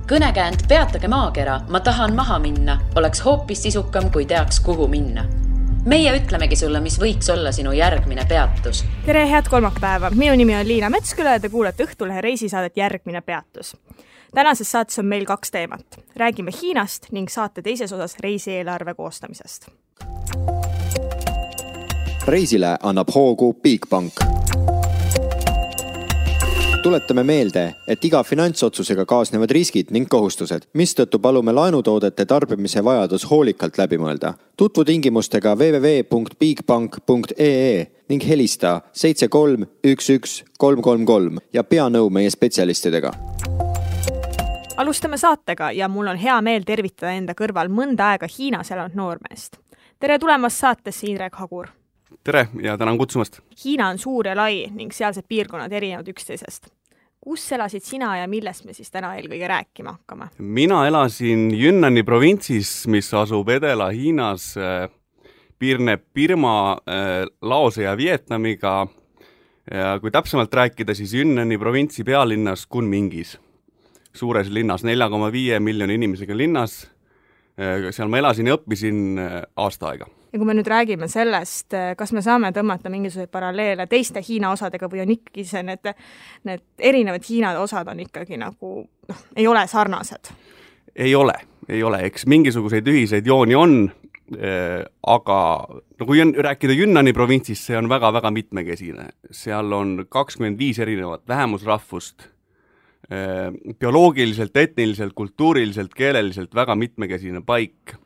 Kõnekäänd peatage maakera, ma tahan maha minna, oleks hoopis sisukam, kui teaks, kuhu minna. Meie ütlemegi sulle, mis võiks olla sinu järgmine peatus. Tere, head kolmapäeva. Minu nimi on Liina Metsküla ja te kuulete Õhtulehe reisisaadet Järgmine peatus. Tänases saates on meil 2 teemat. Räägime Hiinast ning saate teises osas reisieelarve koostamisest. Reisile annab hoogu Bigbank. Tuletame meelde, et iga finantsotsusega kaasnevad riskid ning kohustused, mistõttu palume laenutoodete tarbimise vajadus hoolikalt läbi mõelda. Tutvu tingimustega www.bigbank.ee ning helista 7311 333 ja pea nõu meie spetsialistidega. Alustame saatega ja mul on hea meel tervitada enda kõrval mõnda aega Hiinas elanud noormeest. Tere tulemast saatesse, Indrek Hagur. Tere ja tänan kutsumast. Hiina on suur ja lai ning sealsed piirkonnad erinevad üksteisest. Kus elasid sina ja millest me siis täna eelkõige rääkima hakkame? Mina elasin Yünnani provintsis, mis asub Edela-Hiinas, piirneb Birma, Laose ja Vietnamiga. Ja kui täpsemalt rääkida, siis Yünnani provintsi pealinnas Kunmingis. Suures linnas, 4,5 miljoni inimesega linnas. Seal ma elasin ja õppisin aasta aega. Ja kui me nüüd räägime sellest, kas me saame tõmmata mingisuguseid paralleele teiste Hiina osadega või on ikkagi see, need erinevad Hiina osad on ikkagi nagu, ei ole sarnased? Ei ole. Eks mingisuguseid ühiseid jooni on, aga kui rääkida Yünnani provintsist, see on väga-väga mitmekesine. Seal on 25 erinevat vähemusrahvust, bioloogiliselt, etniliselt, kultuuriliselt, keeleliselt väga mitmekesine paik.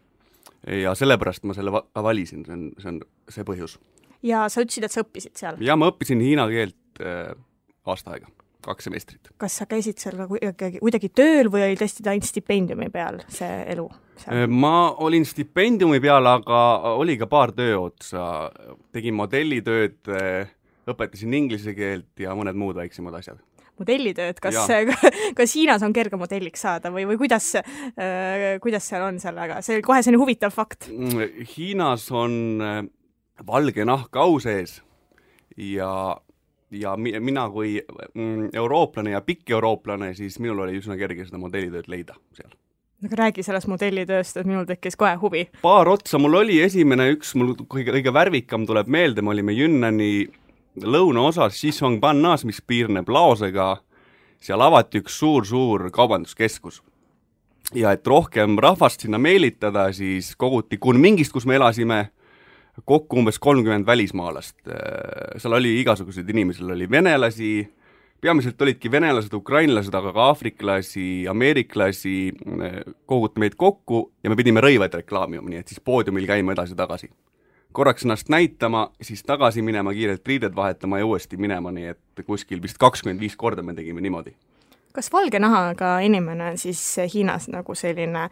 Ja sellepärast ma selle valisin, see on see põhjus. Ja sa ütlesid, et sa õppisid seal? Ja ma õppisin hiina keelt aasta aega, 2 semestrit. Kas sa käisid seal kuidagi tööl või oli tõesti ainult stipendiumi peal see elu seal? Ma olin stipendiumi peal, aga oli ka paar tööotsa. Tegin modellitööd, õpetasin inglise keelt ja mõned muud väiksemad asjad. Modellitööd, kas Hiinas on kerge modelliks saada või kuidas seal on sellega? See kohe selline huvitav fakt. Hiinas on valge nahk au sees ja mina kui eurooplane ja pikk eurooplane, siis minul oli üsna kerge seda modellitööd leida seal. Aga räägi sellest modellitööst, et minul tekkis kohe huvi. Paar otsa mul oli esimene mul kõige värvikam tuleb meelde, me olime Yünnani lõunaosas Xishuangbannas, mis piirneb Laosega, seal avati üks suur kaubanduskeskus. Ja et rohkem rahvast sinna meelitada, siis koguti Kunmingist, kus me elasime, kokku umbes 30 välismaalast. Seal oli igasuguseid inimesi, oli venelasi, peamiselt olidki venelased, ukrainlased, aga ka afriklasi, ameeriklasi, koguti meid kokku ja me pidime rõivaid reklaamima, nii et siis poodiumil käima edasi-tagasi. Korraks ennast näitama, siis tagasi minema, kiirelt riided vahetama ja uuesti minema, nii et kuskil vist 25 korda me tegime niimoodi. Kas valge nahaga inimene on siis Hiinas nagu selline,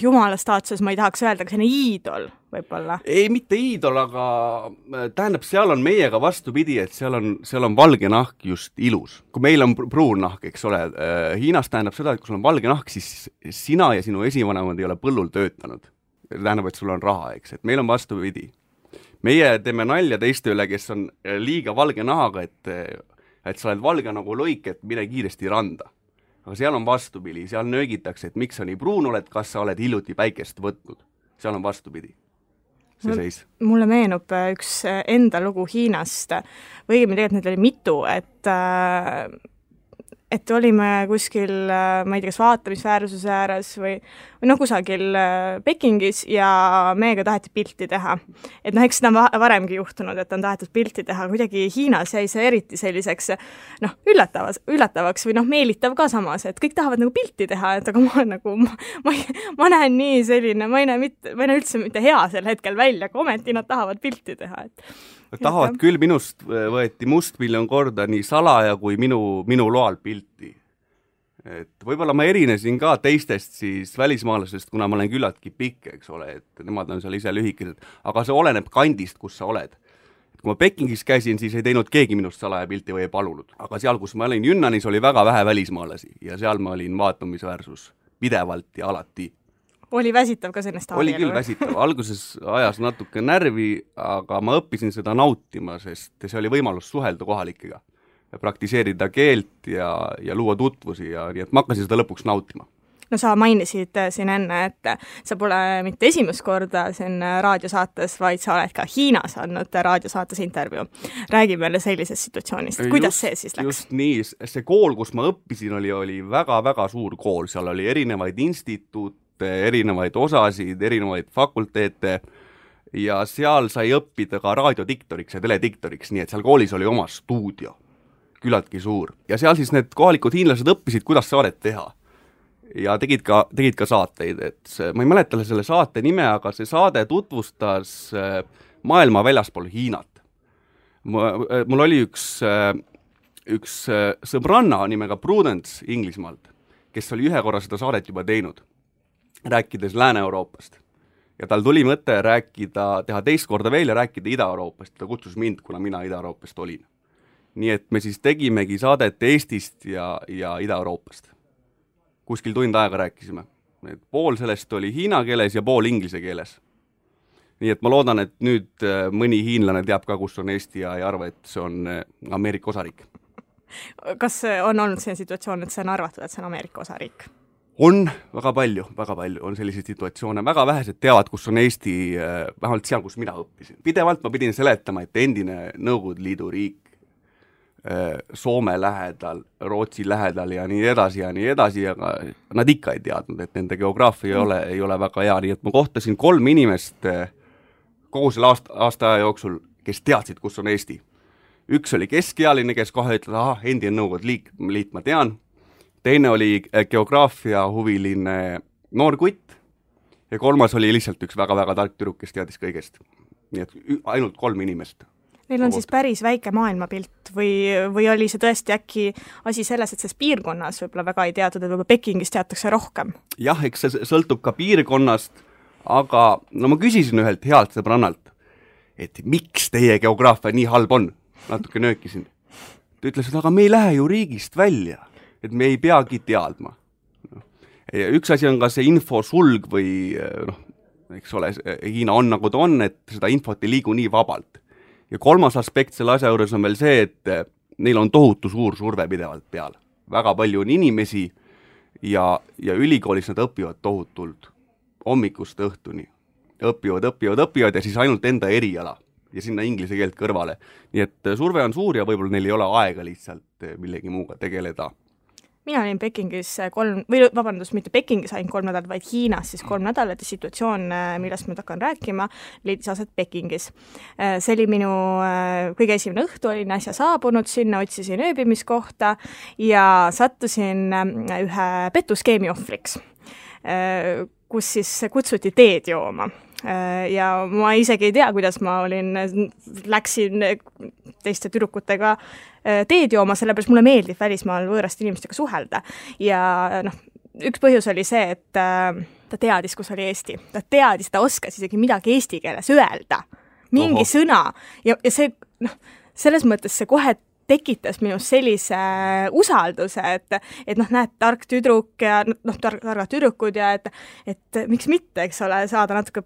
jumala staatuses ma ei tahaks öelda, aga selline iidol võib-olla? Ei, mitte iidol, aga tähendab, seal on meiega vastupidi, et seal on valge nahk just ilus. Kui meil on pruun nahk, eks ole, Hiinas tähendab seda, et kui sul on valge nahk, siis sina ja sinu esivanemad ei ole põllul töötanud. Tähendab, et sul on raha, eks, et meil on vastupidi. Meie teeme nalja teiste üle, kes on liiga valge nahaga, et sa oled valge nagu loik, et mine kiiresti randa. Aga seal on vastupidi, seal nöögitakse, et miks sa nii pruun oled, kas sa oled hiljuti päikest võtnud. Seal on vastupidi. See seis. Mulle meenub üks enda lugu Hiinast, või tegelikult need oli mitu, et olime kuskil, ma ei tea, kas vaatamisväärsuse ääres või kusagil Pekingis ja meiega taheti pilti teha. Et eks seda on varemgi juhtunud, et on tahetud pilti teha. Kuidagi Hiinas jäi see eriti selliseks üllatavaks või meelitav ka samas, et kõik tahavad nagu pilti teha, et aga ma näen nii selline, ma ei näe üldse mitte hea sel hetkel välja, aga ometi nad tahavad pilti teha. Tahavad küll, minust võeti must miljon korda nii salaja kui minu loal pilti. Et võib-olla ma erinesin ka teistest siis välismaalasest, kuna ma olen küllaltki pikk, eks ole, et nemad on seal ise lühikesed, aga see oleneb kandist, kus sa oled. Et kui ma Pekingis käisin, siis ei teinud keegi minust salaja pilti või ei palunud. Aga seal, kus ma olin Yunnanis, oli väga vähe välismaalasi ja seal ma olin vaatamisväärsus pidevalt ja alati. Oli väsitav ka sellest Oli küll väsitav. Alguses ajas natuke närvi, aga ma õppisin seda nautima, sest see oli võimalus suhelda kohalikega. praktiseerida keelt ja luua tutvusi ja nii, et ma hakkasin seda lõpuks nautima. No sa mainisid siin enne, et sa pole mitte esimest korda siin raadiosaates, vaid sa oled ka Hiinas andnud raadiosaates intervjuu. Räägi meile sellisest situatsioonist, kuidas see siis läks? Just nii, see kool, kus ma õppisin, oli väga-väga suur kool, seal oli erinevaid instituute, erinevaid osasid, erinevaid fakulteete ja seal sai õppida ka raadiodiktoriks ja telediktoriks, nii et seal koolis oli oma stuudio, küllaltki suur. Ja seal siis need kohalikud hiinlased õppisid, kuidas saadet teha. Ja tegid ka saateid, et ma ei mäleta selle saate nime, aga see saade tutvustas maailma väljaspool Hiinat. Mul oli üks sõbranna nimega Prudence Inglismaalt, kes oli ühe korra seda saadet juba teinud, rääkides Lääne-Euroopast. Ja tal tuli mõte teha teist korda veel ja rääkida Ida-Euroopast. Ta kutsus mind, kuna mina Ida-Euroopast olin. Nii et me siis tegimegi saadet Eestist ja Ida-Euroopast. Kuskil tund aega rääkisime. Pool sellest oli hiina keeles ja pool inglise keeles. Nii et ma loodan, et nüüd mõni hiinlane teab ka, kus on Eesti ja ei arva, et see on Ameerika osariik. Kas on olnud see situatsioon, et see on arvatud, et see on Ameerika osariik? On väga palju on selliseid situatsioone. Väga vähesed teavad, kus on Eesti, vähemalt seal, kus mina õppisin. Pidevalt ma pidin seletama, et endine Nõukogude Liidu riik Soome lähedal, Rootsi lähedal ja nii edasi, aga nad ikka ei teadnud, et nende geograafia ei ole väga hea, nii et ma kohtasin 3 inimest kogu selle aasta aja jooksul, kes teadsid, kus on Eesti. Üks oli keskealine, kes kohe ütles, endine Nõukogude liit ma tean, teine oli geograafia huviline noor kutt ja 3. oli lihtsalt üks väga-väga tark tüdruk, kes teadis kõigest. Nii et ainult 3 inimest. Neil on siis päris väike maailmapilt või oli see tõesti äkki asi selles, et selles piirkonnas võib-olla väga ei teatud, et võib-olla Pekingis teatakse rohkem? Jah, eks see sõltub ka piirkonnast, aga ma küsisin ühelt healt sõbrannalt, et miks teie geograafia nii halb on? Natuke nöökisin. Ta ütles, et aga me ei lähe ju riigist välja, et me ei peagi teadma. Üks asi on ka see infosulg või eks ole, Hiina on nagu ta on, et seda infot ei liigu nii vabalt. Ja 3. aspekt selle asja juures on veel see, et neil on tohutu suur surve pidevalt peal. Väga palju on inimesi ja ülikoolis nad õpivad tohutult hommikust õhtuni. Õpivad ja siis ainult enda eriala ja sinna inglise keelt kõrvale. Nii et surve on suur ja võib-olla neil ei ole aega lihtsalt millegi muuga tegeleda. Mina olin Pekingis mitte Pekingis ainult 3 nädalat, vaid Hiinas siis 3 nädalat ja situatsioon, millest ma hakkan rääkima, leidis aset Pekingis. See oli minu kõige esimene õhtu, olin äsja saabunud sinna, otsisin ööbimiskohta ja sattusin ühe petuskeemi ohvriks, kus siis kutsuti teed jooma. Ja ma isegi ei tea, kuidas ma läksin teiste tüdrukutega teed jooma, sellepärast mulle meeldib välismaal võõraste inimestega suhelda. Ja üks põhjus oli see, et ta teadis, kus oli Eesti. Ta oskas isegi midagi eesti keeles öelda. Mingi sõna. Ja see, selles mõttes see kohe tekitas minus sellise usalduse, et näed, tark tüdruk ja targad tüdrukud ja et miks mitte, eks ole, saada natuke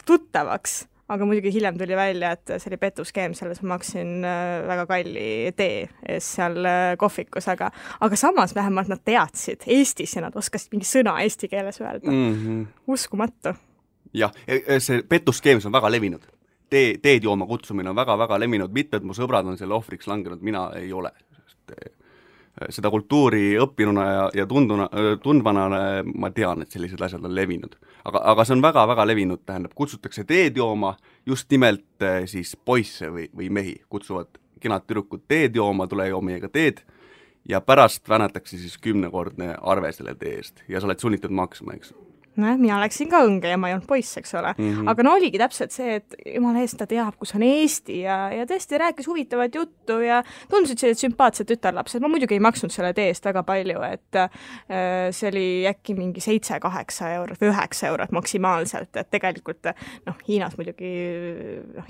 tuttavaks, aga muidugi hiljem tuli välja, et see oli petuskeem, selles ma maksin väga kalli tee ees seal kohvikus, aga samas vähemalt nad teadsid Eestis ja nad oskasid mingi sõna eesti keeles öelda. Uskumatu. Jah, see petuskeem on väga levinud. Teed jooma kutsumine on väga-väga levinud, mitmed mu sõbrad on selle ohvriks langenud, mina ei ole. Seda kultuuri õppinuna ja tundvana ma tean, et sellised asjad on levinud. Aga see on väga-väga levinud, tähendab, kutsutakse teed jooma, just nimelt siis poisse või mehi, kutsuvad kenad tüdrukud teed jooma, tule joo meiega teed ja pärast vänatakse siis 10-kordne arve selle tee eest ja sa oled sunnitud maksma, eks. Mina läksin ka õnge ja ma ei olnud poiss, eks ole. Aga oligi täpselt see, et jumala eest ta teab, kus on Eesti ja tõesti rääkis huvitavat juttu ja tundusid sellised sümpaatsed tütarlapsed. Ma muidugi ei maksnud selle tee eest väga palju, et see oli äkki mingi 7-8 eurot või 9 eurot maksimaalselt, et tegelikult Hiinas muidugi,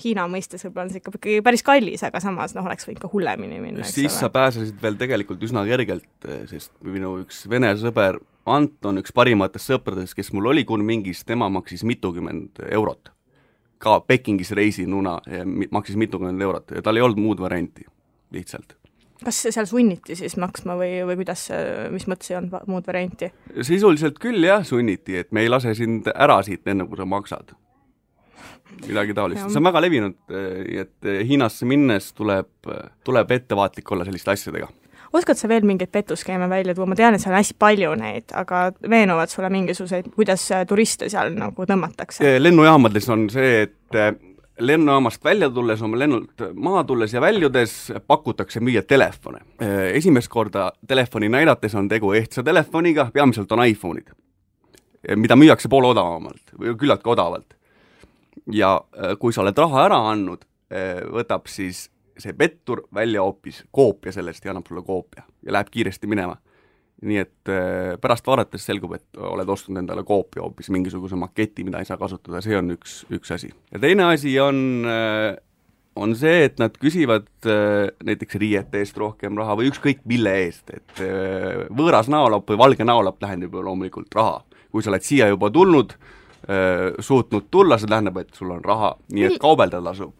Hiina mõistes võib-olla on see ikka päris kallis, aga samas oleks võinud ka hullemini minna. Siis sa pääsesid veel tegelikult üsna kergelt, sest minu üks vene sõber Anton, üks parimatest sõpradest, kes mul oli Kunmingis, tema maksis mitukümmend eurot. Ka Pekingis reisinuna maksis mitukümmend eurot ja tal ei olnud muud varianti lihtsalt. Kas seal sunniti siis maksma või kuidas, mis mõttes ei olnud muud varianti? Sisuliselt küll jah, sunniti, et me ei lase sind ära siit enne, kui sa maksad. Midagi taolist. See on väga levinud, et Hiinasse minnes tuleb ettevaatlik olla selliste asjadega. Oskad sa veel mingeid pettuskeeme välja tuua? Ma tean, et seal on hästi palju neid, aga veenuvad sulle mingisuguseid, kuidas turiste seal nagu tõmmatakse? Lennujaamades on see, et lennujaamast välja tulles, oma lennult maha tulles ja väljudes pakutakse müüa telefone. Esimest korda telefoni näidates on tegu ehtsa telefoniga, peamiselt on iPhone'id, mida müüakse poole odavamalt või küllaltki odavalt. Ja kui sa oled raha ära andnud, võtab siis see pettur välja hoopis koopia sellest ja annab sulle koopia ja läheb kiiresti minema. Nii et pärast vaadates selgub, et oled ostnud endale koopia hoopis mingisuguse maketi, mida ei saa kasutada, see on üks asi. Ja teine asi on see, et nad küsivad näiteks riiete eest rohkem raha või ükskõik mille eest, et võõras näolapp või valge näolapp tähendab ju loomulikult raha. Kui sa oled siia juba tulnud, suutnud tulla, see tähendab, et sul on raha, nii et kaubelda tasub.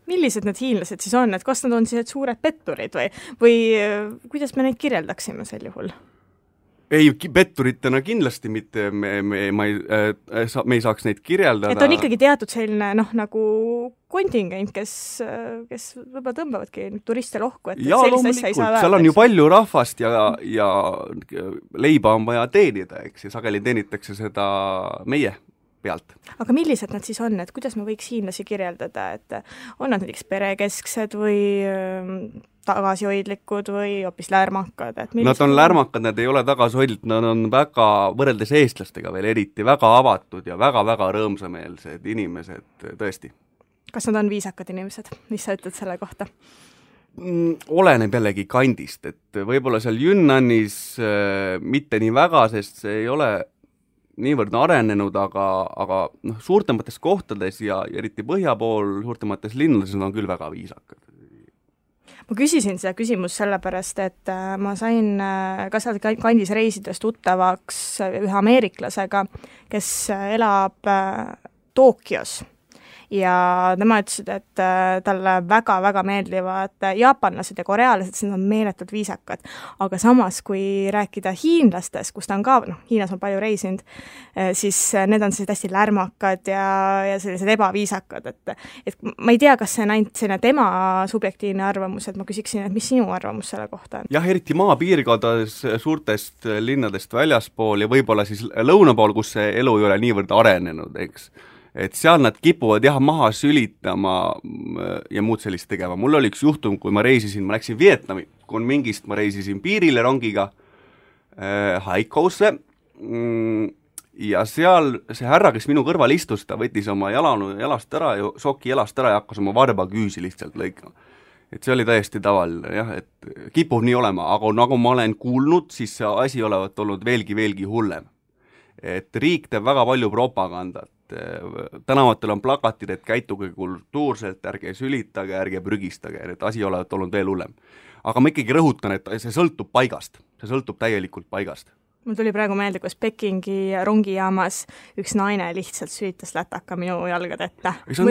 Millised need hiinlased siis on, et kas nad on siis suured petturid või kuidas me neid kirjeldaksime sel juhul? Ei, petturitena kindlasti mitte, me ei saaks neid kirjeldada. Et on ikkagi teatud selline nagu kontingent, kes võib-olla tõmbavadki turiste lohku, et ja, sellist asja ei saa öelda. Seal on ju palju rahvast ja leiba on vaja teenida, eks, ja sageli teenitakse seda meie pealt. Aga millised nad siis on, et kuidas me võiks hiinlasi kirjeldada, et on nad näiteks perekesksed või tagasihoidlikud või hoopis lärmakad? Nad on lärmakad, nad ei ole tagasihoidlikud, nad on väga, võrreldes eestlastega veel eriti, väga avatud ja väga-väga rõõmsameelsed inimesed, tõesti. Kas nad on viisakad inimesed? Mis sa ütled selle kohta? Oleneb jällegi kandist, et võib-olla seal Yunnanis mitte nii väga, sest see ei ole niivõrd arenenud, aga suurtemates kohtades ja eriti põhja pool, suurtemates linnades on küll väga viisakad. Ma küsisin seda küsimus sellepärast, et ma sain ka seal kandis reisides tuttavaks ühe ameeriklasega, kes elab Tokyos. Ja tema ütlesid, et talle väga-väga meeldivad jaapanlased ja korealased, sest nad on meeletult viisakad. Aga samas, kui rääkida hiinlastest, kus ta on ka, Hiinas on palju reisinud, siis need on sellised hästi lärmakad ja sellised ebaviisakad. Et ma ei tea, kas see on ainult selline tema subjektiivne arvamus, et ma küsiksin, et mis sinu arvamus selle kohta on? Jah, eriti maapiirkondades suurtest linnadest väljaspool ja võib-olla siis lõuna pool, kus see elu ei ole niivõrd arenenud, eks. Et seal nad kipuvad maha sülitama ja muud sellist tegema. Mul oli üks juhtum, kui ma läksin Vietnami, kui mingist ma reisisin piirile rongiga Haikousse ja seal see härra, kes minu kõrval istus, ta võttis oma jalast ära, soki jalast ära ja hakkas oma varba küüsi lihtsalt lõikama. Et see oli täiesti tavaline, jah, et kipub nii olema, aga nagu ma olen kuulnud, siis see asi olevat olnud veelgi hullem. Et riik teeb väga palju propagandat. Tänavatel on plakatid, et käituge kultuurselt, ärge sülitage, ärge prügistage, et asi olevat olnud veel hullem. Aga ma ikkagi rõhutan, et see sõltub paigast, see sõltub täielikult paigast. Mul tuli praegu meelde, kus Pekingi rongijaamas üks naine lihtsalt sülitas lätaka minu jalgade ette. See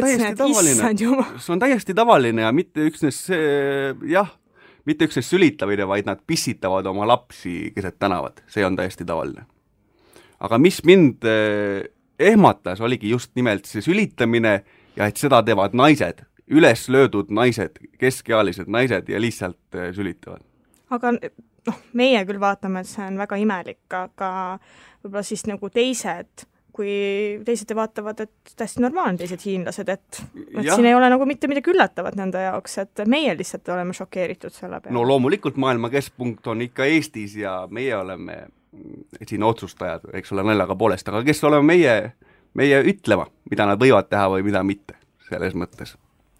on täiesti tavaline ja mitte üksnes sülitamine, vaid nad pissitavad oma lapsi keset tänavad, see on täiesti tavaline. Aga mis mind ehmatas, oligi just nimelt see sülitamine ja et seda teevad naised, üles löödud naised, keskealised naised ja lihtsalt sülitavad. Aga meie küll vaatame, et see on väga imelik, aga võib-olla siis nagu teised, kui teised vaatavad, et täiesti normaalne teised hiinlased, et siin ei ole nagu mitte midagi üllatavat nende jaoks, et meie lihtsalt oleme šokeeritud selle peale. No loomulikult maailma keskpunkt on ikka Eestis ja meie oleme siin otsustajad, eks ole naljaga poolest, aga kes oleme meie ütlema, mida nad võivad teha või mida mitte, selles mõttes.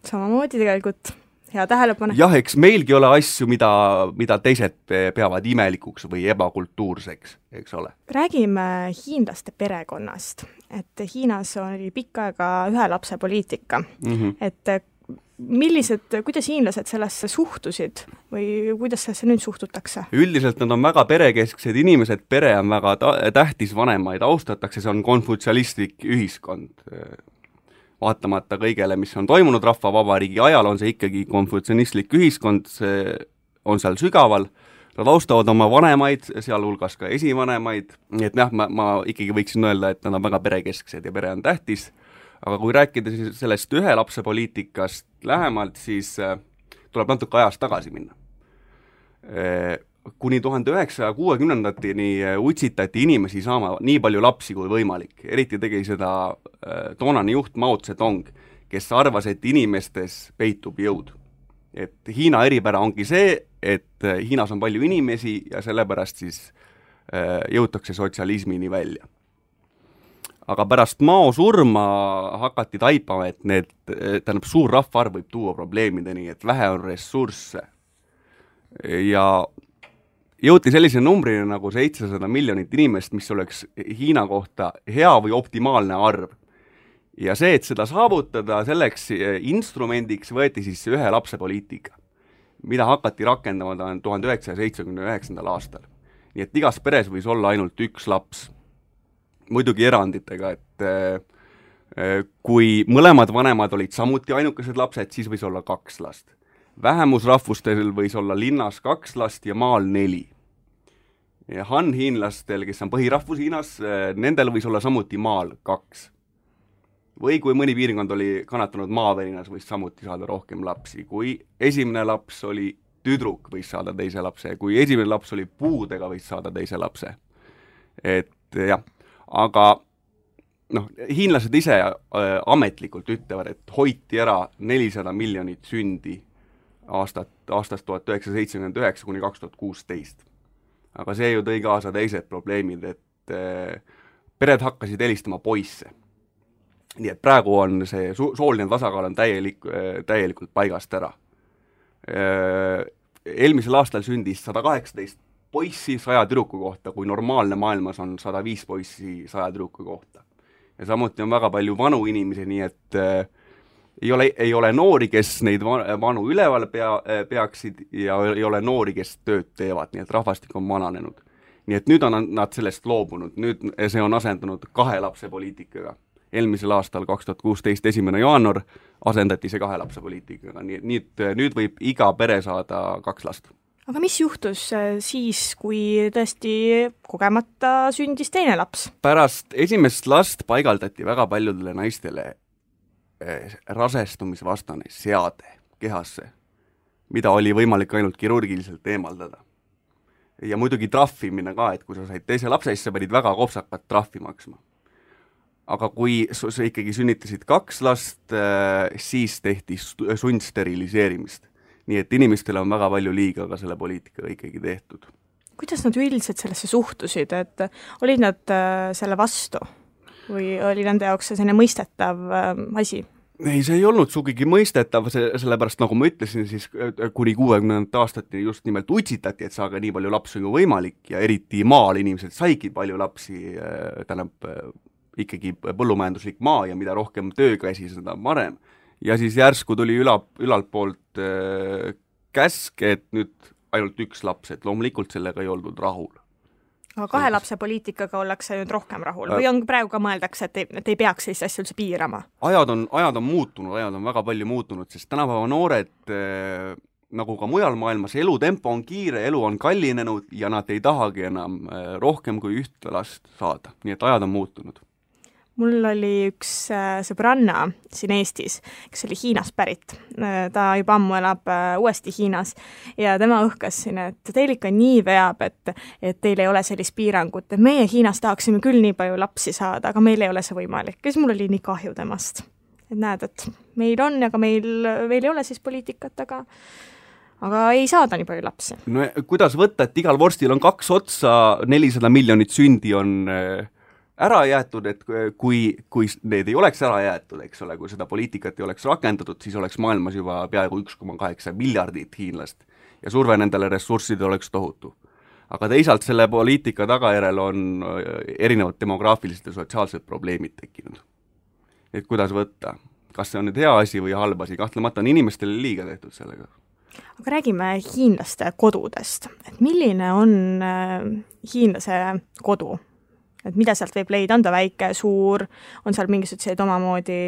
Samamoodi tegelikult, hea tähelepanu. Jah, eks meilgi ole asju, mida teised peavad imelikuks või ebakultuurseks, eks ole. Räägime hiinlaste perekonnast, et Hiinas oli pikka aega ühe lapse poliitika, et kuidas hiinlased sellesse suhtusid või kuidas sellesse nüüd suhtutakse? Üldiselt nad on väga perekesksed inimesed, pere on väga tähtis, vanemaid austatakse, see on konfutsialistlik ühiskond. Vaatamata kõigele, mis on toimunud rahvavabariigi ajal, on see ikkagi konfutsialistlik ühiskond, on seal sügaval, nad austavad oma vanemaid, sealhulgas ka esivanemaid, nii et jah, ma ikkagi võiksin öelda, et nad on väga perekesksed ja pere on tähtis, aga kui rääkida siis sellest ühe lapse poliitikast lähemalt, siis tuleb natuke ajast tagasi minna. Kuni 1960-ndateni utsitati inimesi saama nii palju lapsi kui võimalik, eriti tegi seda toonane juht Mao Zedong, kes arvas, et inimestes peitub jõud. Et Hiina eripära ongi see, et Hiinas on palju inimesi ja sellepärast siis jõutakse sotsialismini välja. Aga pärast Mao surma hakati taipama, et tähendab, suur rahvaarv võib tuua probleemideni, et vähe on ressursse. Ja jõuti sellise numbrina nagu 700 miljonit inimest, mis oleks Hiina kohta hea või optimaalne arv. Ja see, et seda saavutada, selleks instrumendiks võeti siis ühe lapse poliitika, mida hakati rakendama 1979. aastal. Nii et igas peres võis olla ainult üks laps. Muidugi eranditega, et kui mõlemad vanemad olid samuti ainukesed lapsed, siis võis olla 2 last. Vähemusrahvustel võis olla linnas 2 last ja maal 4. Ja Han-hiinlastel, kes on põhirahvus Hiinas, nendel võis olla samuti maal 2. Või kui mõni piirkond oli kannatanud maavärinas, võis samuti saada rohkem lapsi. Kui esimene laps oli tüdruk, võis saada teise lapse. Kui esimene laps oli puudega, võis saada teise lapse. Et jah, aga hiinlased ise ametlikult ütlevad, et hoiti ära 400 miljonit sündi aastast 1979 kuni 2016. Aga see ju tõi kaasa teised probleemid, et pered hakkasid helistama poisse. Nii et praegu on see sooline tasakaal on täielikult paigast ära. Eelmisel aastal sündis 118 poissi 100 tüdruku kohta, kui normaalne maailmas on 105 poissi 100 tüdruku kohta. Ja samuti on väga palju vanu inimesi, nii et ei ole noori, kes neid vanu üleval peaksid ja ei ole noori, kes tööd teevad, nii et rahvastik on vananenud. Nii et nüüd on nad sellest loobunud, nüüd see on asendunud 2 lapse poliitikaga. Eelmisel aastal 2016 1. jaanuar asendati see 2 lapse poliitikaga, nii et nüüd võib iga pere saada 2 last. Aga mis juhtus siis, kui tõesti kogemata sündis teine laps? Pärast esimest last paigaldati väga paljudele naistele rasestumisvastane seade kehasse, mida oli võimalik ainult kirurgiliselt eemaldada. Ja muidugi trahvimine ka, et kui sa said teise lapse, siis sa pidid väga kopsakat trahvi maksma. Aga kui sa ikkagi sünnitasid 2 last, siis tehti sundsteriliseerimist. Nii et inimestele on väga palju liiga ka selle poliitikaga ikkagi tehtud. Kuidas nad üldiselt sellesse suhtusid, et olid nad selle vastu või oli nende jaoks selline mõistetav asi? Ei, see ei olnud sugigi mõistetav, sellepärast nagu ma ütlesin, siis kuni 60. aastati just nimelt utsitati, et saage nii palju lapsi kui võimalik ja eriti maal inimesed saigi palju lapsi, ikkagi põllumajanduslik maa ja mida rohkem töökäsi, seda parem. Ja siis järsku tuli ülalt poolt käsk, et nüüd ainult 1 laps, et loomulikult sellega ei oldud rahul. Aga 2 lapse poliitikaga ollakse nüüd rohkem rahul või on praegu ka mõeldakse, et ei peaks sellist asja üldse piirama? Ajad on muutunud, ajad on väga palju muutunud, sest tänapäeva noored, nagu ka mujal maailmas, elutempo on kiire, elu on kallinenud ja nad ei tahagi enam rohkem kui 1 last saada, nii et ajad on muutunud. Mul oli üks sõbranna siin Eestis, kes oli Hiinast pärit. Ta juba ammu elab uuesti Hiinas ja tema õhkas siin, et teil ikka nii veab, et teil ei ole sellist piirangut, et meie Hiinas tahaksime küll nii palju lapsi saada, aga meil ei ole see võimalik. Ja siis mul oli nii kahju temast. Et näed, et meil on, aga meil ei ole siis poliitikat, aga ei saada nii palju lapsi. No kuidas võtta, et igal vorstil on 2 otsa, 400 miljonit sündi on ära jäetud, et kui need ei oleks ära jäetud, eks ole, kui seda poliitikat ei oleks rakendatud, siis oleks maailmas juba peaaegu 1,8 miljardit hiinlast ja surve nendele ressurssidele oleks tohutu. Aga teisalt selle poliitika tagajärel on erinevad demograafilised ja sotsiaalsed probleemid tekkinud. Et kuidas võtta? Kas see on nüüd hea asi või halb asi? Kahtlemata on inimestele liiga tehtud sellega. Aga räägime hiinlaste kodudest. Et milline on hiinlase kodu? Et mida sealt võib leida, on ta väike, suur, on seal mingisugused omamoodi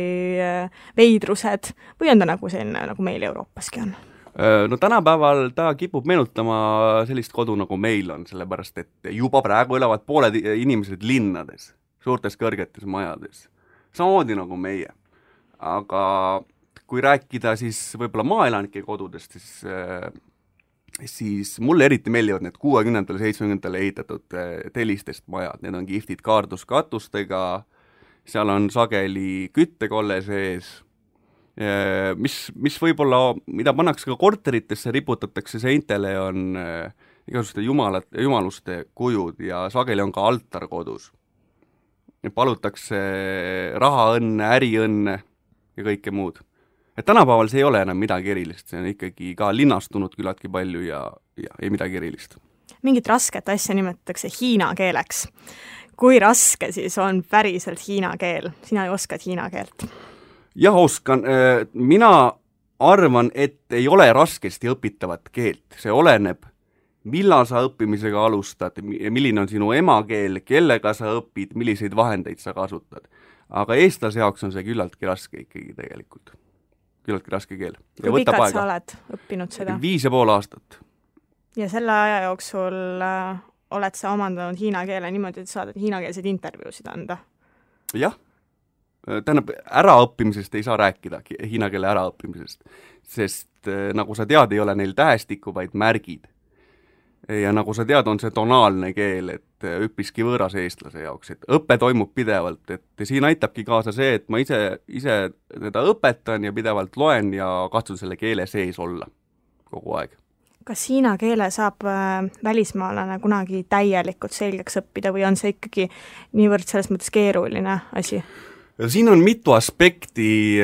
veidrused või on ta nagu selline, nagu meil Euroopaski on? No tänapäeval ta kipub meenutama sellist kodu, nagu meil on, sellepärast et juba praegu elavad pooled inimesed linnades, suurtes kõrgetes majades, samamoodi nagu meie. Aga kui rääkida siis võib-olla maaelanike kodudest, siis mulle eriti meeldivad need 60. 70. ehitatud telistest majad, need on kihvtid kaarduskatustega, seal on sageli küttekolle sees, mis võib-olla, mida pannakse ka korteritesse, riputatakse seintele, on igasuguste jumaluste kujud ja sageli on ka altar kodus. Palutakse rahaõnne, äriõnne ja kõike muud. Et tänapäeval see ei ole enam midagi erilist, see on ikkagi ka linnastunud küllaltki palju ja ei midagi erilist. Mingit rasket asja nimetatakse hiina keeleks. Kui raske siis on päriselt hiina keel? Sina ju oskad hiina keelt. Jah, oskan. Mina arvan, et ei ole raskesti õpitavat keelt. See oleneb, millal sa õppimisega alustad, milline on sinu emakeel, kellega sa õpid, milliseid vahendeid sa kasutad. Aga eestlase jaoks on see küllaltki raske ikkagi tegelikult. Küllaltki raske keel. Kui pikalt sa oled õppinud seda? 5,5 aastat. Ja selle aja jooksul oled sa omandanud hiina keele niimoodi, et saad hiinakeelseid intervjuusid anda? Jah. Tähendab, äraõppimisest ei saa rääkida, hiina keele äraõppimisest, sest nagu sa tead, ei ole neil tähestikku, vaid märgid. Ja nagu sa tead, on see tonaalne keel, et üpriski võõras eestlase jaoks, et õpe toimub pidevalt, et siin aitabki kaasa see, et ma ise teda õpetan ja pidevalt loen ja katsun selle keele sees olla kogu aeg. Kas hiina keele saab välismaalane kunagi täielikult selgeks õppida või on see ikkagi niivõrd selles mõttes keeruline asi? Siin on mitu aspekti,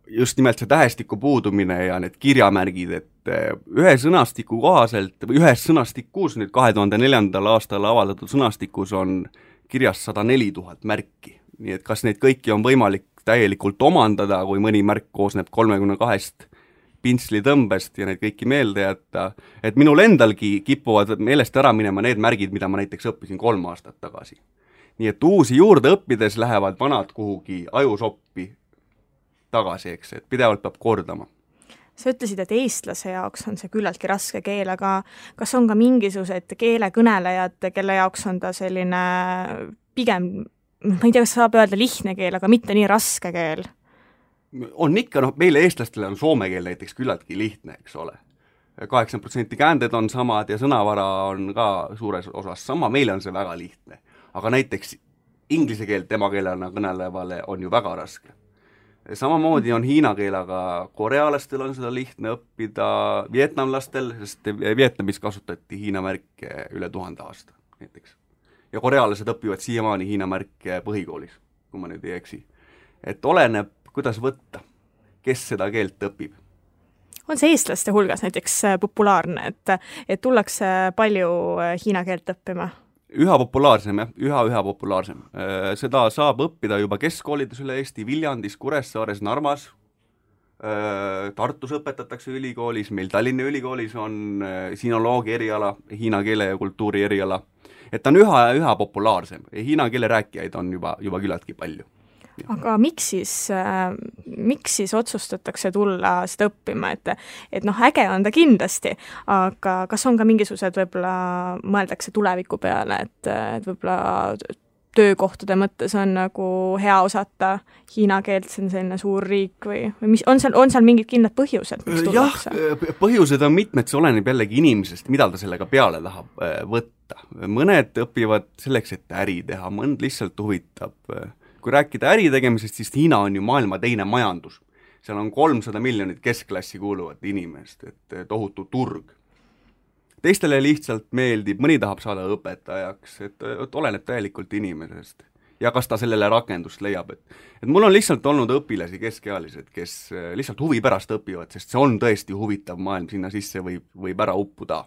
just nimelt see tähestiku puudumine ja need kirjamärgid, et ühe sõnastiku kohaselt, või ühes sõnastikus, nüüd 2004. aastal avaldatud sõnastikus on kirjas 104 000 märki. Nii et kas neid kõiki on võimalik täielikult omandada, kui mõni märk koosneb 32 pintslitõmbest ja neid kõiki meelde jätta, et minul endalgi kipuvad meelest ära minema need märgid, mida ma näiteks õppisin 3 aastat tagasi. Nii et uusi juurde õppides lähevad vanad kuhugi ajusoppi tagasi, eks, et pidevalt peab kordama. Sa ütlesid, et eestlase jaoks on see küllaltki raske keel, aga kas on ka mingisugused keelekõnelejad, kelle jaoks on ta selline pigem, ma ei tea, kas saab öelda lihtne keel, aga mitte nii raske keel? On ikka, meile eestlastele on soome keel näiteks küllaltki lihtne, eks ole. 80% käänded on samad ja sõnavara on ka suures osas sama, meile on see väga lihtne. Aga näiteks inglise keelt emakeelena kõnelevale on ju väga raske. Samamoodi on hiina keel, aga korealastel on seda lihtne õppida, vietnamlastel, sest Vietnamis kasutati hiina märke üle 1000 aasta näiteks. Ja korealased õpivad siiamaani hiina märke põhikoolis, kui ma nüüd ei eksi. Et oleneb, kuidas võtta, kes seda keelt õpib. On see eestlaste hulgas näiteks populaarne, et tullakse palju hiina keelt õppima? Üha populaarsem, jah, üha populaarsem. Seda saab õppida juba keskkoolides üle Eesti, Viljandis, Kuressaares, Narvas, Tartus õpetatakse ülikoolis, meil Tallinna ülikoolis on sinoloogi eriala, hiina keele ja kultuuri eriala. Et ta on üha populaarsem. Hiina keele rääkijaid on juba küllaltki palju. Aga miks siis otsustatakse tulla seda õppima, et äge on ta kindlasti, aga kas on ka mingisugused võib-olla mõeldakse tuleviku peale, et võib-olla töökohtade mõttes on nagu hea osata hiina keelt, see on selline suur riik või mis, on seal mingid kindlad põhjused, miks tullakse? Jah, põhjused on mitmed, see oleneb jällegi inimesest, mida ta sellega peale tahab võtta. Mõned õpivad selleks, et äri teha, mõnd lihtsalt huvitab. Kui rääkida äri tegemisest, siis Hiina on ju maailma teine majandus. Seal on 300 miljonit keskklassi kuuluvat inimest, et tohutu turg. Teistele lihtsalt meeldib, mõni tahab saada õpetajaks, et oleneb täielikult inimesest. Ja kas ta sellele rakendust leiab, et mul on lihtsalt olnud õpilasi keskealised, kes lihtsalt huvi pärast õpivad, sest see on tõesti huvitav maailm, sinna sisse võib ära uppuda.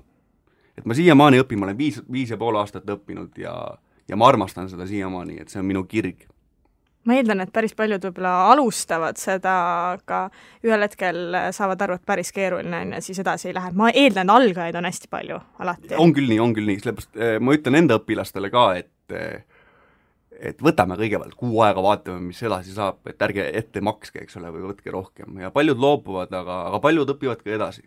Et ma siiamaani õpin, ma olen 5,5 aastat õppinud ja ma armastan seda siiamaani, et see on minu kirg. Ma eeldan, et päris paljud võib-olla alustavad seda, aga ühel hetkel saavad aru, et päris keeruline on ja siis edasi ei lähe. Ma eeldan, algajaid on hästi palju alati. On küll nii. Sellepärast ma ütlen enda õpilastele ka, et võtame kõigepealt kuu aega, vaatame, mis edasi saab, et ärge ette makske, eks ole, või võtke rohkem. Ja paljud loobuvad, aga paljud õpivad ka edasi.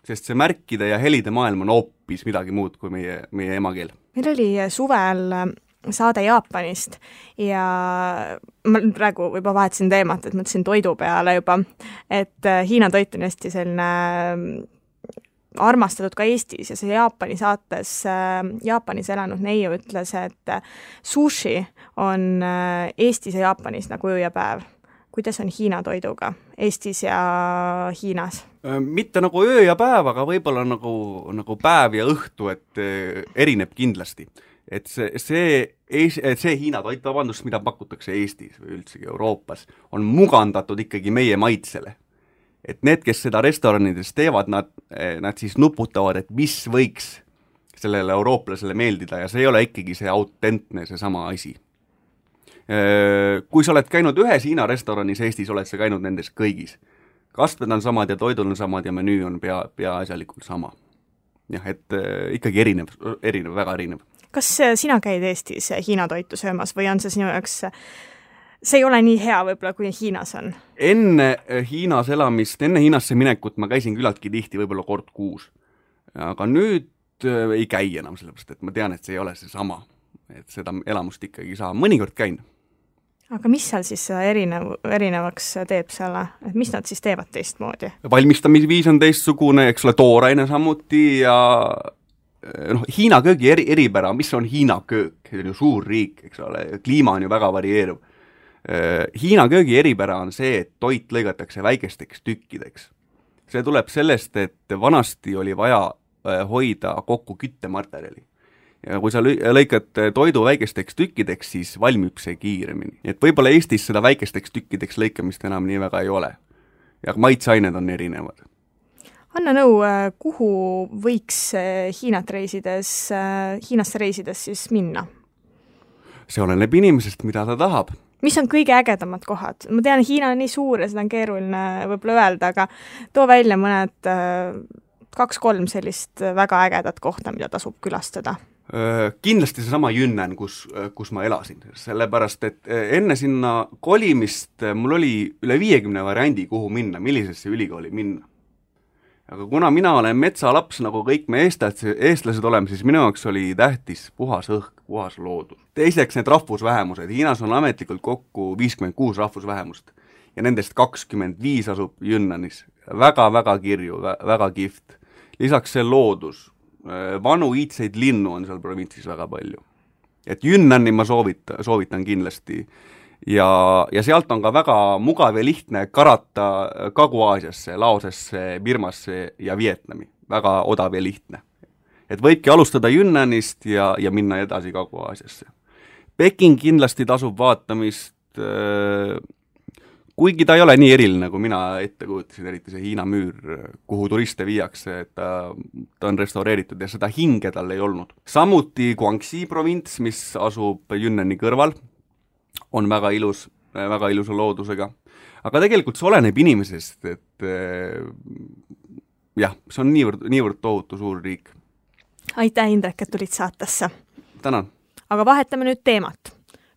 Sest see märkide ja helide maailm on hoopis midagi muud kui meie emakeel. Meil oli suvel saade Jaapanist ja ma praegu juba vahetasin teemat, et mõtlesin toidu peale juba, et Hiina toit on hästi selline armastatud ka Eestis ja see Jaapani saates Jaapanis elanud neiu ütles, et sushi on Eestis ja Jaapanis nagu öö ja päev. Kuidas on Hiina toiduga Eestis ja Hiinas? Mitte nagu öö ja päev, aga võib-olla nagu päev ja õhtu, et erineb kindlasti. Et see Hiina toit, vabandust, mida pakutakse Eestis või üldsegi Euroopas, on mugandatud ikkagi meie maitsele. Et need, kes seda restoranides teevad, nad siis nuputavad, et mis võiks sellele eurooplasele meeldida ja see ei ole ikkagi see autentne, see sama asi. Kui sa oled käinud ühes Hiina restoranis Eestis, oled sa käinud nendes kõigis. Kastmed on samad ja toidul on samad ja menüü on peaasjalikult sama. Jah, et ikkagi erinev, väga erinev. Kas sina käid Eestis Hiina toitu söömas või on see sinu jaoks... See ei ole nii hea võib-olla, kui Hiinas on. Enne Hiinas elamist, enne Hiinasse minekut ma käisin küllaltki tihti, võib-olla kord kuus. Aga nüüd ei käi enam sellepärast, et ma tean, et see ei ole see sama. Et seda elamust ikkagi saa. Mõnikord käin. Aga mis seal siis erinevaks teeb selle? Et mis nad siis teevad teistmoodi? Valmistamisviis on teistsugune, eks ole, tooraine samuti ja Hiina köögi eripära, mis on Hiina köök? See on ju suur riik, eks ole, kliima on ju väga varieeruv. Hiina köögi eripära on see, et toit lõigatakse väikesteks tükkideks. See tuleb sellest, et vanasti oli vaja hoida kokku küttematerjali. Ja kui sa lõikad toidu väikesteks tükkideks, siis valmib see kiiremini. Et võib-olla Eestis seda väikesteks tükkideks lõikamist enam nii väga ei ole. Ja maitseained on erinevad. Anna nõu, kuhu võiks Hiinasse reisides siis minna? See oleneb inimesest, mida ta tahab. Mis on kõige ägedamad kohad? Ma tean, Hiina on nii suur ja seda on keeruline võib-olla öelda, aga too välja mõned 2-3 sellist väga ägedat kohta, mida tasub külastada. Kindlasti see sama Yunnan, kus ma elasin, sellepärast, et enne sinna kolimist mul oli üle 50 variandi, kuhu minna, millisesse ülikooli minna. Aga kuna mina olen metsalaps, nagu kõik me eestlased oleme, siis minu jaoks oli tähtis puhas õhk, puhas loodus. Teiseks need rahvusvähemused. Hiinas on ametlikult kokku 56 rahvusvähemust ja nendest 25 asub Yunnanis. Väga kirju, väga kihvt. Lisaks see loodus. Vanu iidseid linnu on seal provintsis väga palju. Et Yunnani ma soovitan kindlasti. Ja sealt on ka väga mugav ja lihtne karata Kagu-Aasiasse, Laosesse, Birmasse ja Vietnami. Väga odav ja lihtne. Et võibki alustada Yunnanist ja minna edasi Kagu-Aasiasse. Peking kindlasti tasub vaatamist, kuigi ta ei ole nii eriline, kui mina ette kujutasin, eriti see Hiina müür, kuhu turiste viiakse, et ta on restaureeritud ja seda hinge tal ei olnud. Samuti Guangxi provints, mis asub Yunnani kõrval, on väga ilusa loodusega. Aga tegelikult see oleneb inimesest, et jah, see on niivõrd tohutu suur riik. Aitäh, Indrek, et tulid saatesse. Tänan. Aga vahetame nüüd teemat.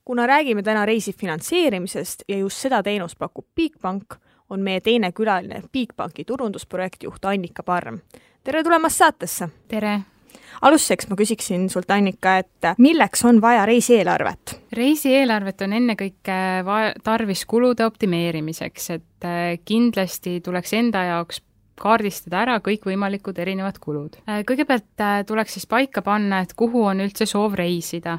Kuna räägime täna reisi finantseerimisest ja just seda teenust pakub Bigbank, on meie teine külaline Bigbanki turundusprojektjuht Annika Parm. Tere tulemast saatesse! Tere! Alustuseks ma küsiksin sult, Annika, et milleks on vaja reisieelarvet? Reisieelarvet on ennekõike tarvis kulude optimeerimiseks, et kindlasti tuleks enda jaoks kaardistada ära kõikvõimalikud erinevad kulud. Kõigepealt tuleks siis paika panna, et kuhu on üldse soov reisida.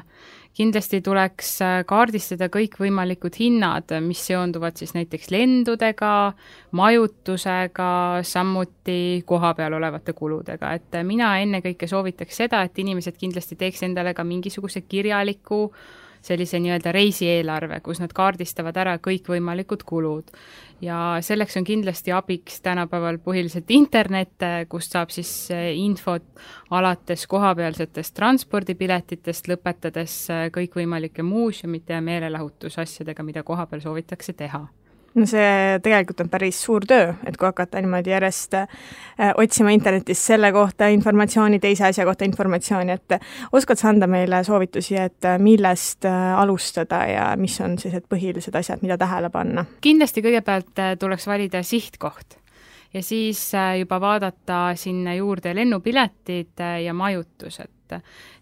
Kindlasti tuleks kaardistada kõikvõimalikud hinnad, mis seonduvad siis näiteks lendudega, majutusega, samuti koha peal olevate kuludega. Et mina ennekõike soovitaks seda, et inimesed kindlasti teeks endale ka mingisuguse kirjaliku sellise nii-öelda reisieelarve, kus nad kaardistavad ära kõikvõimalikud kulud. Ja selleks on kindlasti abiks tänapäeval põhiliselt internet, kust saab siis infot alates kohapealsetest transpordipiletitest, lõpetades kõikvõimalike muuseumite ja meelelahutusasjadega, mida kohapeal soovitakse teha. no see tegelikult on päris suur töö, et kui hakata niimoodi järjest otsima internetis selle kohta informatsiooni, teise asja kohta informatsiooni, et oskad sa anda meile soovitusi, et millest alustada ja mis on sellised põhilised asjad, mida tähele panna? Kindlasti kõigepealt tuleks valida sihtkoht ja siis juba vaadata sinna juurde lennupiletid ja majutused.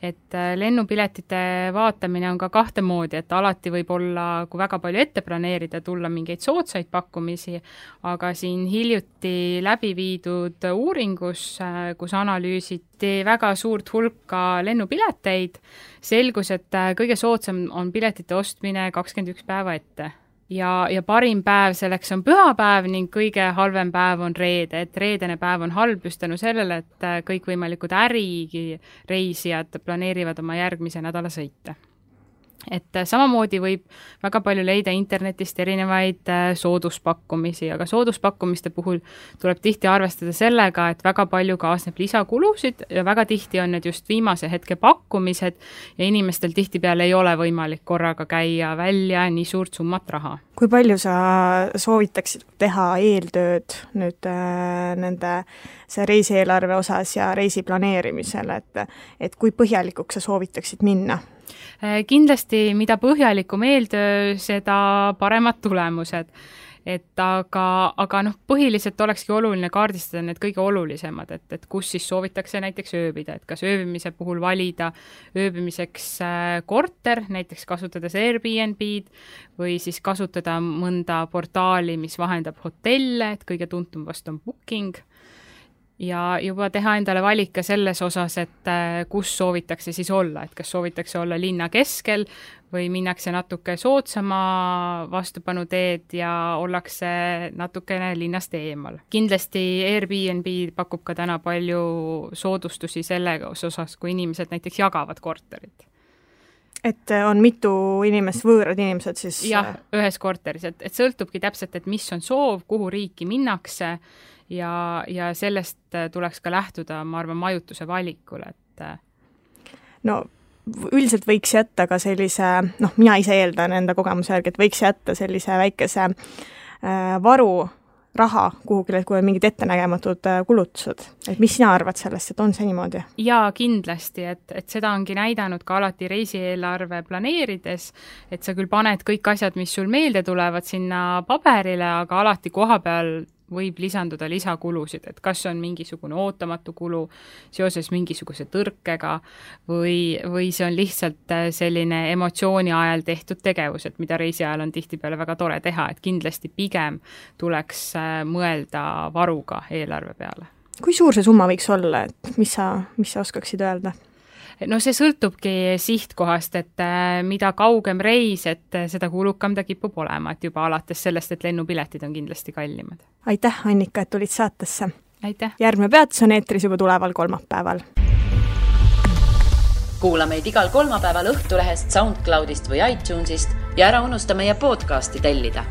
Et lennupiletite vaatamine on ka kahte moodi, et alati võib olla, kui väga palju ette planeerida, tulla mingeid soodsaid pakkumisi, aga siin hiljuti läbi viidud uuringus, kus analüüsiti väga suurt hulka lennupileteid, selgus, et kõige soodsam on piletite ostmine 21 päeva ette. Ja parim päev selleks on pühapäev ning kõige halvem päev on reede, et reedene päev on halb just tänu sellele, et kõikvõimalikud ärireisijad planeerivad oma järgmise nädala sõite. Et samamoodi võib väga palju leida internetist erinevaid sooduspakkumisi, aga sooduspakkumiste puhul tuleb tihti arvestada sellega, et väga palju kaasneb lisakulusid ja väga tihti on need just viimase hetke pakkumised ja inimestel tihtipeale ei ole võimalik korraga käia välja nii suurt summat raha. Kui palju sa soovitaksid teha eeltööd nüüd nende see reisieelarve osas ja reisi planeerimisel, et kui põhjalikuks sa soovitaksid minna? Kindlasti, mida põhjalikum eeltöö, seda paremad tulemused. Aga põhiliselt olekski oluline kaardistada need kõige olulisemad, et kus siis soovitakse näiteks ööbida, et kas ööbimise puhul valida ööbimiseks korter, näiteks kasutades Airbnb-d või siis kasutada mõnda portaali, mis vahendab hotelle, et kõige tuntum vast on Booking. Ja juba teha endale valik ka selles osas, et kus soovitakse siis olla, et kas soovitakse olla linna keskel või minnakse natuke soodsama vastupanu teed ja ollakse natukene linnast eemal. Kindlasti Airbnb pakub ka täna palju soodustusi selle osas, kui inimesed näiteks jagavad korterit. Et on mitu inimest, võõrad inimesed siis? Jah, ühes korteris, et sõltubki täpselt, et mis on soov, kuhu riiki minnakse ja sellest tuleks ka lähtuda, ma arvan, majutuse valikul. No üldiselt võiks jätta ka sellise, mina ise eeldan enda kogemuse järgi, et võiks jätta sellise väikese varu raha kuhugile, kui on mingid ettenägematud kulutused. Et mis sina arvad sellest, et on see niimoodi? Jaa, kindlasti, et seda ongi näidanud ka alati reisieelarve planeerides, et sa küll paned kõik asjad, mis sul meelde tulevad sinna paberile, aga alati koha peal võib lisanduda lisakulusid, et kas on mingisugune ootamatu kulu seoses mingisuguse tõrkega või see on lihtsalt selline emotsiooni ajal tehtud tegevus, et mida reisi ajal on tihtipeale väga tore teha, et kindlasti pigem tuleks mõelda varuga eelarve peale. Kui suur see summa võiks olla, et mis sa oskaksid öelda? No see sõltubki sihtkohast, et mida kaugem reis, et seda kulukam ta kipub olema, et juba alates sellest, et lennupiletid on kindlasti kallimad. Aitäh, Annika, et tulid saatesse. Aitäh. Järgmine peatus on eetris juba tuleval kolmapäeval. Kuula meid igal kolmapäeval Õhtulehest, SoundCloudist või iTunesist ja ära unusta meie podcasti tellida.